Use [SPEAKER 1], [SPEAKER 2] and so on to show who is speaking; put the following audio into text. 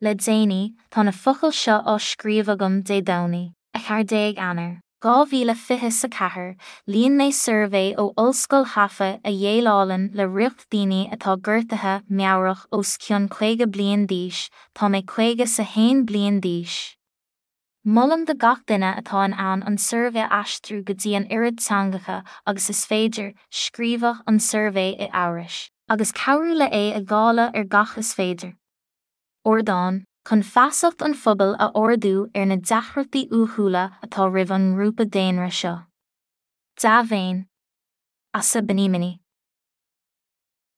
[SPEAKER 1] Le déanaí, tá na focail seo á scríobh agam Dé Domhnaigh, 14 Eanáir, 2024, líon mé suirbhé ó Ollscoil Haifa a dhéileálann le riocht daoine atá gortaithe meabhrach os cionn 50 bliain d'aois, tá mé 50 's 1 bliain d'aois. Molaim do gach duine atá in ann an suirbhé a aistriú go dtí an oiread teangacha agus is féidir, scríobhadh an suirbhé i Eabhrais, agus cabhrú le é a dháileadh ar gach is féidir. ardán, chun feasacht an phobail a ardú ar na deacrachtaí uathúla atá roimh an ngrúpa daonra seo. Dea-mhéin. Asa Benimini.